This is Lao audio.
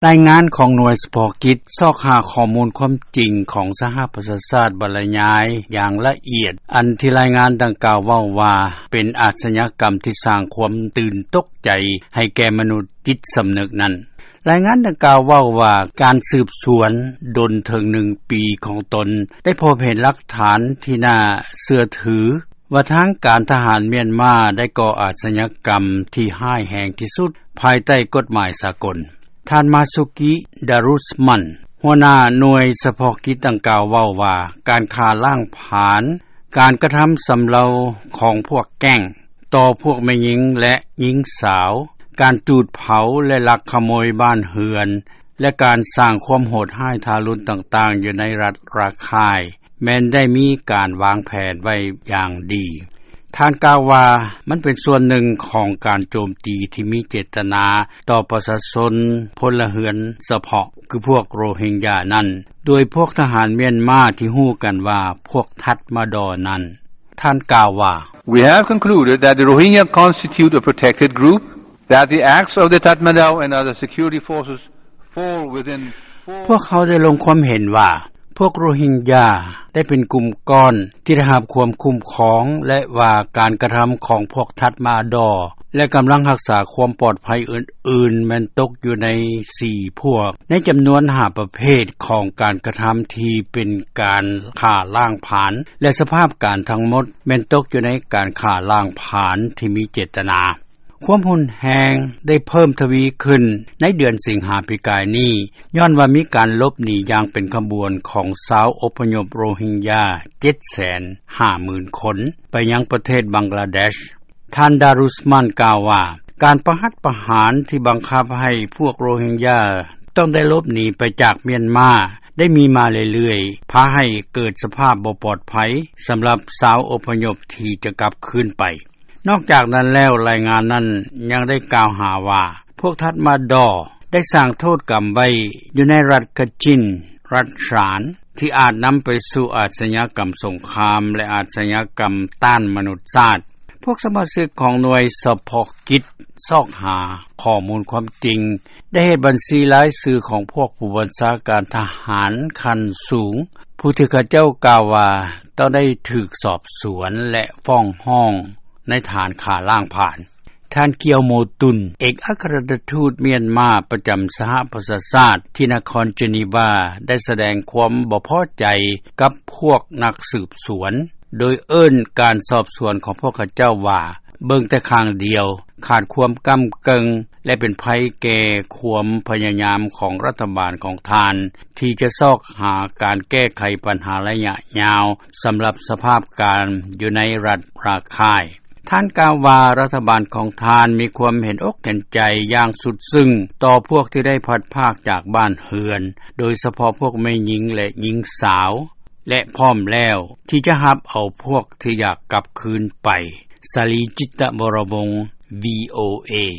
ລາຍງານຂອງໜ່ວຍສະເພາະກິດ ຊອກຫາຂໍ້ມູນຄວາມຈິງ ຂອງສະຫະປະຊາຊາດ ບັນລະຍາຍຢ່າງລະອຽດ ອັນທີ່ລາຍງານດັ່ງກ່າວເວົ້າວ່າ ເປັນອາຊຍາກຳທີ່ສ້າງຄວາມຕື່ນຕົກໃຈ ໃຫ້ແກ່ມະນຸດຈິດສຳນຶກນັ້ນ. ລາຍງານດັ່ງກ່າວເວົ້າວ່າ ການສືບສວນດົນເຖິງໜຶ່ງປີຂອງຕົນ ໄດ້ພົບເຫັນຫຼັກຖານທີ່ໜ້າເຊື່ອຖື ວ່າທາງການທະຫານມຽນມາ ໄດ້ກໍ່ອາຊຍາກຳທີ່ຮ້າຍແຮງທີ່ສຸດ ພາຍໃຕ້ກົດໝາຍສາກົນ. ທ່ານ ມາຊູກິ ດາຣຸສມັນ ຫົວໜ້າໜ່ວຍສະເພາະກິດດັ່ງກ່າວເວົ້າວ່າ ການຂ້າລ້າງຜານ, ການກະທຳຊຳເລົາຂອງພວກແກ້ງ ຕໍ່ພວກແມ່ຍິງ ແລະ ຍິງສາວ, ການຈູດເຜົາ ແລະ ລັກຂະໂມຍບ້ານເຮືອນ ແລະ ການສ້າງຄວາມໂຫດຮ້າຍທາລຸນຕ່າງໆ ຢູ່ໃນລັດຣາຄາຍ ແມ່ນໄດ້ມີການວາງແຜນໄວ້ຢ່າງດີ. ທ່ານກ່າວວ່າ ມັນເປັນສ່ວນໜຶ່ງຂອງການໂຈມຕີທີ່ມີເຈດຕະນາຕໍ່ປະຊາຊົນພົນລະເຮືອນສະເພາະ ຄືພວກໂຣຮິງຢານັ້ນ ໂດຍພວກທະຫານມຽນມາທີ່ຮູ້ກັນວ່າ ພວກທັດມາດໍນັ້ນ. ທ່ານກ່າວວ່າ We have concluded that the Rohingya constitute a protected group, that the acts of the Tatmadaw and other security forces fall within four ພວກເຮົາໄດ້ລົງຄວາມເຫັນວ່າ ພວກໂຣຮິງຢາໄດ້ເປັນກຸ່ມກ້ອນທີ່ໄດ້ຮັບຄວາມຄຸ້ມຄອງ ແລະ ວ່າການກະທຳຂອງພວກທັດມາດໍ ແລະ ກຳລັງຮັກສາຄວາມປອດໄພອື່ນໆ ແມ່ນຕົກຢູ່ໃນສີ່ພວກ ໃນຈຳນວນຫ້າປະເພດຂອງການກະທຳທີ່ເປັນການຂ້າລ້າງຜານ ແລະ ສະພາບການທັງໝົດແມ່ນຕົກຢູ່ໃນການຂ້າລ້າງຜານທີ່ມີເຈດຕະນາ. ຄວາມຮຸນແຮງໄດ້ເພີ່ມທະວີຂຶ້ນໃນເດືອນສິງຫາປີກາຍນີ້ ຍ້ອນວ່າມີການຫຼົບໜີຢ່າງເປັນຂະບວນຂອງຊາວອົບພະຍົບໂຣຮິງຢາ ເຈັດແສນຫ້າໝື່ນຄົນ ໄປຍັງປະເທດບັງກລາເດຊ. ທ່ານ ດາຣຸສມັນ ກ່າວວ່າ ການປະຫັດປະຫານທີ່ບັງຄັບໃຫ້ພວກໂຣຮິງຢາຕ້ອງໄດ້ຫຼົບໜີໄປຈາກມຽນມາ ໄດ້ມີມາເລື້ອຍໆ ພາໃຫ້ເກີດສະພາບບໍ່ປອດໄພສຳລັບຊາວອົບພະຍົບທີ່ຈະກັບຄືນໄປ. ນອກຈາກນັ້ນແລ້ວ ລາຍງານນັ້ນຍັງໄດ້ກ່າວຫາວ່າ ພວກທັດມາດໍໄດ້ສ້າງໂທດກຳໄວ້ຢູ່ໃນລັດກະຈິນ, ລັດຊານ ທີ່ອາດນຳໄປສູ່ອາຊຍາກຳສົງຄາມ ແລະ ອາຊຍາກຳຕ້ານມະນຸດຊາດ. ພວກສະມາຊິກຂອງໜ່ວຍສະເພາະກິດຊອກຫາຂໍ້ມູນຄວາມຈິງ ໄດ້ເຮັດບັນຊີລາຍຊື່ຂອງພວກຜູ້ບັນຊາການທະຫານຂັ້ນສູງ ຜູ້ທີ່ເຂົາເຈົ້າກ່າວວ່າຕ້ອງໄດ້ຖືກສອບສວນ ແລະ ຟ້ອງຮ້ອງໃນຖານຂ້າລ້າງຜານ. ທ່ານ ກຽວໂມຕຸນ ເອກອັກຄະລັດຖະທູດມຽນມາປະຈຳສະຫະປະຊາຊາດທີ່ນະຄອນເຈນີວາ ໄດ້ສະແດງຄວາມບໍ່ພໍໃຈກັບພວກນັກສືບສວນ ໂດຍເອີ້ນການສອບສວນຂອງພວກເຂົາເຈົ້າວ່າ ເບິ່ງແຕ່ຂ້າງດຽວ, ຂາດຄວາມກ້ຳເກິ່ງ ແລະ ເປັນໄພແກ່ຄວາມພະຍາຍາມຂອງລັດຖະບານຂອງທ່ານ ທີ່ຈະຊອກຫາການແກ້ໄຂບັນຫາໄລຍະຍາວ ສຳລັບສະພາບການຢູ່ໃນລັດຣາຄາຍ. ທ່ານກ່າວວ່າ ລັດຖະບານຂອງທ່ານມີຄວາມເຫັນອົກເຫັນໃຈຢ່າງສຸດຊຶ້ງຕໍ່ພວກທີ່ໄດ້ພັດພາກຈາກບ້ານເຮືອນ, ໂດຍສະເພາະພວກແມ່ຍິງ ແລະ ຍິງສາວ ແລະ ພ້ອມແລ້ວທີ່ຈະຮັບເອົາພວກທີ່ຢາກກັບຄືນໄປ. ສາລີ ຈິດຕະວໍລະວົງ ວີໂອເອ.